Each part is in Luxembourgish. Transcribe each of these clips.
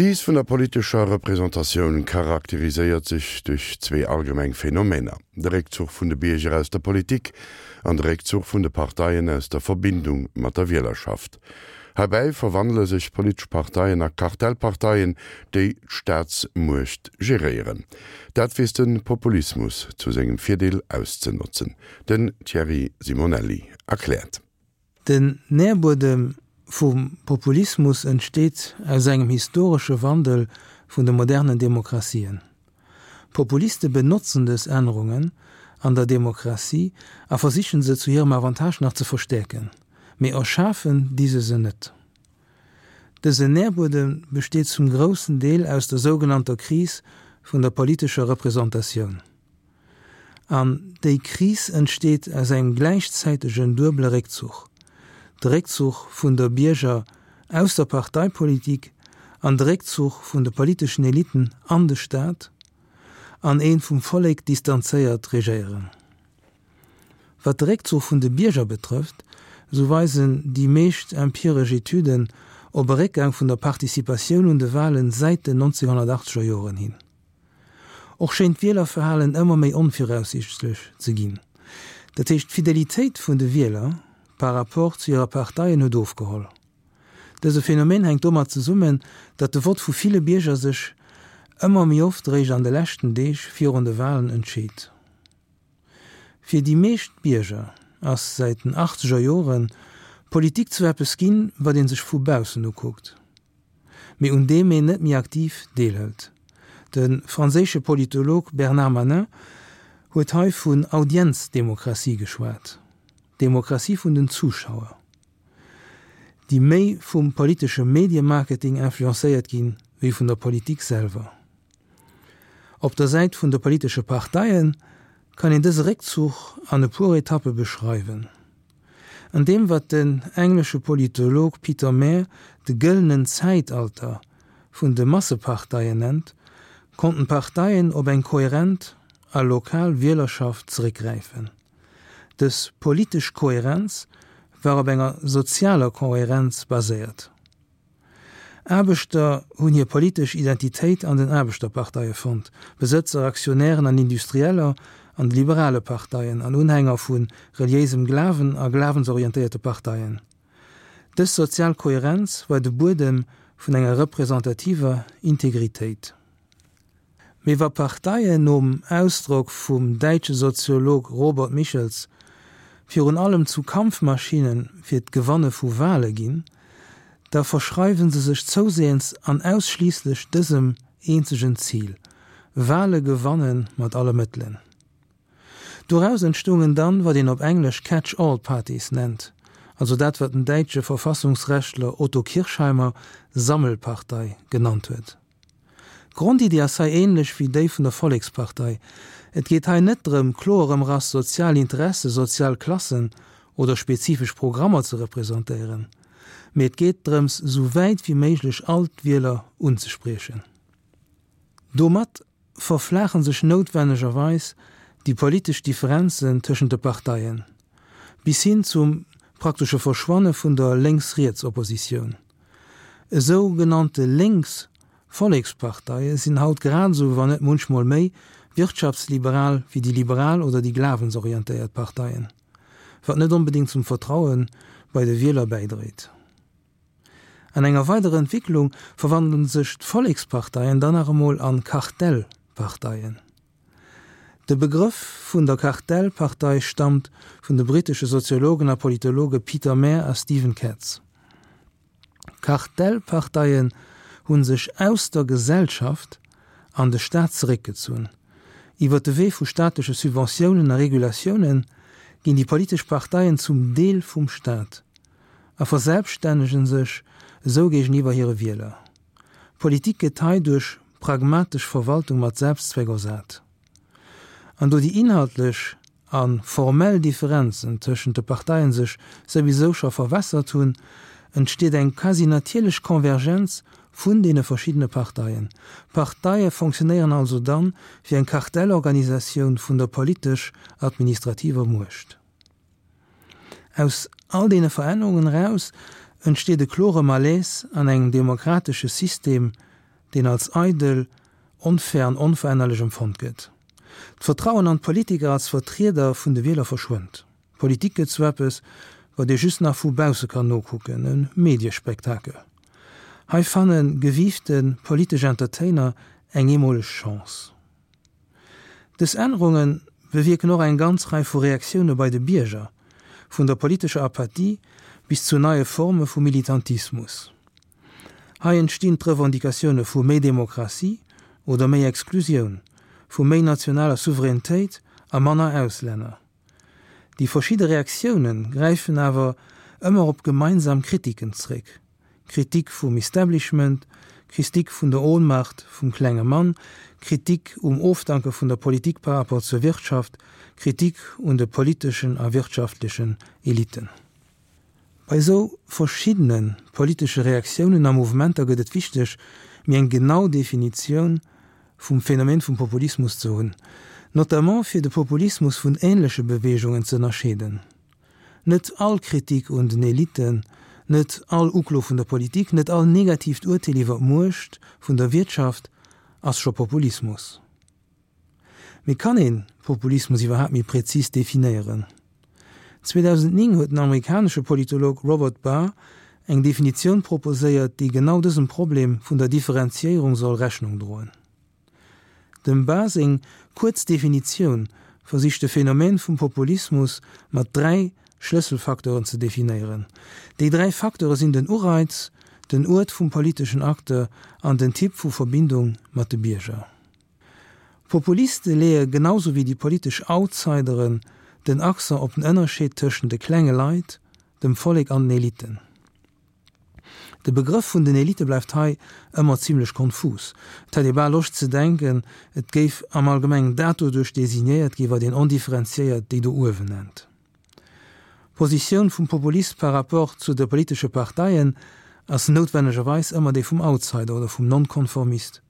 D'Kris vun der politescher Representatioun charakteriséiert sech duerch zwee allgemeng Phänomener, de Réckzuch vun de Bierger aus der Politik an de Réckzuch vun de Parteien aus der Verbindung mat der Wielerschaft. Heibäi verwandele sech politesch Parteien a Kartellparteien, déi d'Staatsmuecht geréieren. Dat weess de Populismus zu sengem Virdeel auszenotzen. Den Thierry Simonelli erkläert. Den Nährbuedem vum Populismus entsteet aus engem historesche Wandel vun de modernen Demokratien. Populiste benotzen dës Ännerungen an der Demokratie a versichen se zu hirem Avantage nach ze verstäerken, mee erschafen di se se net. Dësen Nährbuedem besteet zum groussen Deel aus der sougenannter Kris vun der politescher Representatioun. An déi Kris entsteet aus engem gläichzäitegen duebele Réckzuch, de Réckzuch vun der Bierger aus der Parteipolitik an de Réckzuch vun de politeschen Eliten an de Staat an een vum Vollek distanzéiert Regéieren. Wat de Réckzuch vun de Bierger betrëfft, esou weisen déi meescht empiresch Etüden op e Réckgang vun der Participatioun un de Walen säit den 1980er Joren hin. Och schéint d'Wielerverhalen ëmmer méi onviraussiichtlech ze ginn. Dat heescht, d'Fidelitéit vun de Wieler par rapport zu hire Parteien huet ofgeholl. Dëse Phänomen hänkt domat zesummen, datt de Vott vu ville Bierger sech ëmmer méi oft eréischt an de leschten Deeg virun de Walen entscheet. Fir déi meescht Bierger ass säit den achtzeger Joren Politik zu eppes ginn, wat ee sech vu baussen ukuckt. mee un deem een net méi aktiv deelhëlt. De franséische Politolog Bernard Manin huet hei vun Audienzdemokratie geschwat, Demokratie vun den Zuschauer, déi méi vum politesche Mediemarketing influencéiert ginn, wéi vun der Politik selwer. Op der Säit vun de politesche Parteie kann een dëse Réckzuch an e puer Etappe beschreiwen. An deem wat den englesche Politolog Peter Mair de gëllenen Zäitalter vun de Masseparteien nennt, konnten d'Parteien op eng kohärent a lokal Wielerschaft zeréckgräifen. Dës politesch Kohärenz war op enger sozialer Kohärenz baséiert. Aarbechter hunn hir politesch Identitéit an den Aarbechterparteie fonnt, Besëtzer, Aktionären an Industrieller an de liberale Parteien an Unhänger vu reliéisem Glawen a glawensorientéierte Parteien. Dës sozial Kohärenz war de Buedem vun enger representativer Integritéit. Mee wa Parteien nom Ausdrock vum däitsche Soziolog Robert Michels virun allem zu Kampfmaschinne fir d'Gewanne vu Wale ginn, da verschreiwe se sech zouseeëns an ausschliisslech dësem eenzegen Zil, Wale gewanne mat alle Mëttelen. Doraus entstoungen dann, wat een op Englesch Catch-all-Parties nennt, also dat wat den däitsche Verfassungsrechtler Otto Kirchheimer Sammelpartei genannt huet. D'Grondiddi ass hei ähnlech wéi déi vun der Vollekspartei. Et geet hei net drëm, kloer ëmrass sozial Interesse, sozial Klassen oder spezifesch Programmer ze representéieren, mee et geet drëms, sou wäit wéi méiglech all d'Wieler unzespriechen. Domat verflaache sech noutwennegerweis déi politesch Differenzen tëschent de Parteien, bis hin zum praktesche Verschwanne vun der Lénks-Riets-Oppositioun. Esou genannte lénks Volleksparteie sinn haut grad esou, wann net munchmol méi, wirtschaftsliberal wéi déi liberal oder déi glawensorientéiert Parteien, wat net onbedéngt zum Vertraue bei de Wieler bäidréit. An enger weiderer Entwicklung verwandelen sech d'Volleksparteien dann nach emol an Kartellparteien. De Begrëff vun der Kartellpartei stammt vun de brittesche Soziologen a Politologe Peter Mair a Stephen Katz. Kartellparteien hu sech aus der Gesellschaft an de Staat zeréckgezunn. Iwwer de Wee vu staatleche Subventiounen a Regulatioune ginn déi politesch Parteien zum Deel vum Staat a verselbststännege sech esou géigeniwwer hire Wieler. Politik gëtt hei duerch pragmatesch Verwaltung mat Selbstzweck ersat. An do déi inhaltlech a formell Differenzen tëschent de Parteien sech souwisou scho verwässert hunn, entsteet eng quasi natierlech Konvergenz vun deene verschiddene Parteien. D'Parteie fonctionnéieren also dann wéi eng Kartellorganisatioun vun der politesch-administrativer Muecht. Aus all deene Verännerungen eraus entsteet e klore Malaise an engem demokratesche System. deen als eidel, onfair an onverännerlech empfonnt gëtt. D'Vertrauen an d'Politiker als Vertrieder vun de Wieler verschwënnt. Politik gëtt zu eppes, wat ee just nach vu bausse kann nokucken, e Mediespektakel. Hei fanne gewiifte politesch Entertainer eng eemoleg Chance. Dës Ännerunge bewierken och eng ganz Rei vu Reaktioune bei de Bierger, vun der politescher Apathie bis zu neie Forme vu Militantismus. Hei entstinn d'Revendicatioune vu méi Demokratie oder méi Exklusioun, vu méi nationaler Souveränetéit a manner Auslänner. Déi verschidde Reaktioune gräifen awer ëmmer op gemeinsam Kritiken zréck, Kritik vum Establishment, Kristik vun der Ohnmacht vum klenge Mann, Kritik um Ofdanke vun der Politik par rapport zur Wirtschaft, Kritik un de politeschen a wirtschaftlechen Eliten. Bei esou verschiddene politesche Reaktiounen a Mouvementer gëtt et wichteg, méi eng genau Definitioun vum Phänomen vum Populismus ze hunn, notamment fir de Populismus vun änleche Beweegungen ze ënnerscheeden. Net all Kritik un den Eliten, net all Uklo vun der Politik, net all negatiivt Urteel iwwer d'Muecht vun der Wiertschaft ass scho Populismus. Mee kann een Populismus iwwerhaapt méi präzis definéieren? 2009 huet den amerikanesche Politolog Robert Barr eng Definitioun proposéiert, déi genau dësem Problem vun der Differenziéierung soll Rechnung droen. Dem Barr seng kuerz Definitioun versicht de Phänomen vum Populismus mat 3 Schlësselfacteuren ze definéieren. Déi 3 Facteure sinn den Ureiz, den Uert vum politeschen Acteur an den Typ vu Verbindung mat de Bierger. Populiste leeë genau sou wéi déi politesch Outsideren den Accent op den Ënnerscheed tëschent de klenge Leit, dem Vollek an den Eliten. De Begrëff vun den Elite bleift hei ëmmer zimlech konfus. Et hätt ee bal Loscht ze denken, et géif am Allgemengen dat doduerch designéiert gi wat een ondifferenziéiert déi do uewen nennt. D'Positioun vum Populist par rapport zu de politesche Parteien ass noutwennegerweis ëmmer déi vum Outsider oder vum Nonkonformist.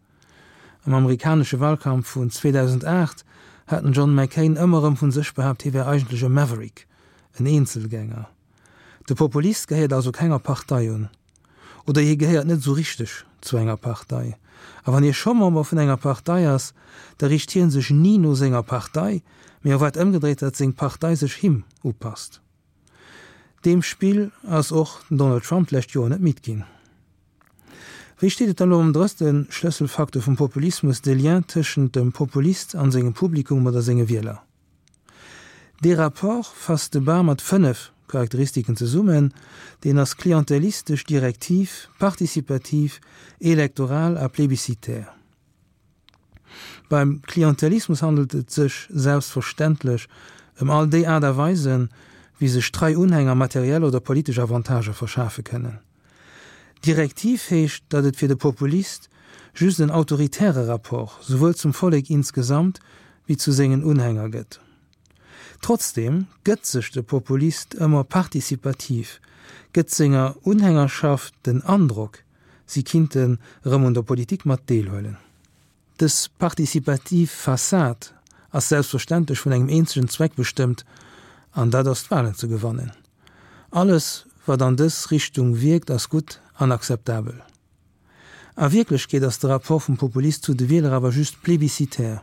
Am amerikanesche Walkampf vun 2008 hat den John McCain ëmmer erëm vun sech behaapt, hie wär eigentlech e Maverick, en Eenzelgänger. De Populist gehéiert also kenger Partei un. Oder hie gehéiert net esou richteg zu enger Partei. A wann hie scho Member vun enger Partei ass, da riicht hie sech ni no senger Partei, mee erwaart ëmgedréit, datt seng Partei sech him upasst. Deem Spill ass och den Donald Trump d'lescht Joer net midd ginn. Wéi steet et dann elo mam drëtte Schlësselfacteur vum Populismus, de Lien tëschent dem Populist an sengem Publikum oder senge Wieler? Dee Rapport fasst de Barr mat 5 Charakteristiken zesummen, deen ass klientelistesch, direktiv, participativ, elektoral a plébiscitaire. Beim Klientelismus handelt et sech selbstverständlech ëm all déi Aart a Weisen, wéi sech trei Unhänger materiell oder politesch Avantagë verschafe kënnen. Direktiv heescht, datt et fir de Populist just en autoritäre Rapport souwuel zum Vollek insgesamt wéi zu sengen Unhänger gëtt. Trotzdeem gëtt sech de Populist ëmmer participativ, gëtt senger Unhängerschaft den Androck, si kinnten erëm un der Politik mat deelhuelen. Dës participativ Fassad ass selbstverständlech vun engem eenzegen Zweck bestëmmt, an dat ass d'Wahlen ze gewannen. Alles wat an dës Richtung wierkt ass gutt an akzeptabel. A Wierklechkeet ass de Rapport vum Populist zu de Wieler awer just plébiscitaire.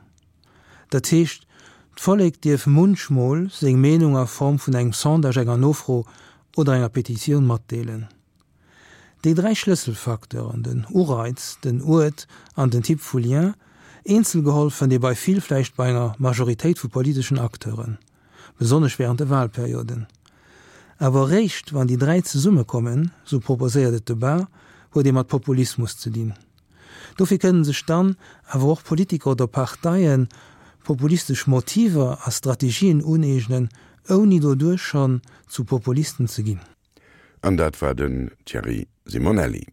Dat heescht, d'Vollek dierf munchmol seng Meenung a Form vun engem Sondage, enger Nofro oder enger Petitioun matdeelen. Déi 3 Schlësselfacteuren, den Ureiz, den Uert an den Typ vu Lien, eenzel geholl fënnt ee bei vill, vläicht bei enger Majoritéit vu politeschen Acteuren, besonnesch wärend de Walperioden. Awer eréischt wann déi 3 zesummekommen, sou proposéiert et de Barr, huet ee mat Populismus ze dinn. Dofir kënnen sech dann awer och Politiker oder Parteien populistesch Motiver a Strategien uneegnen, ouni doduerch schonn zu Populisten ze ginn. An dat war den Thierry Simonelli.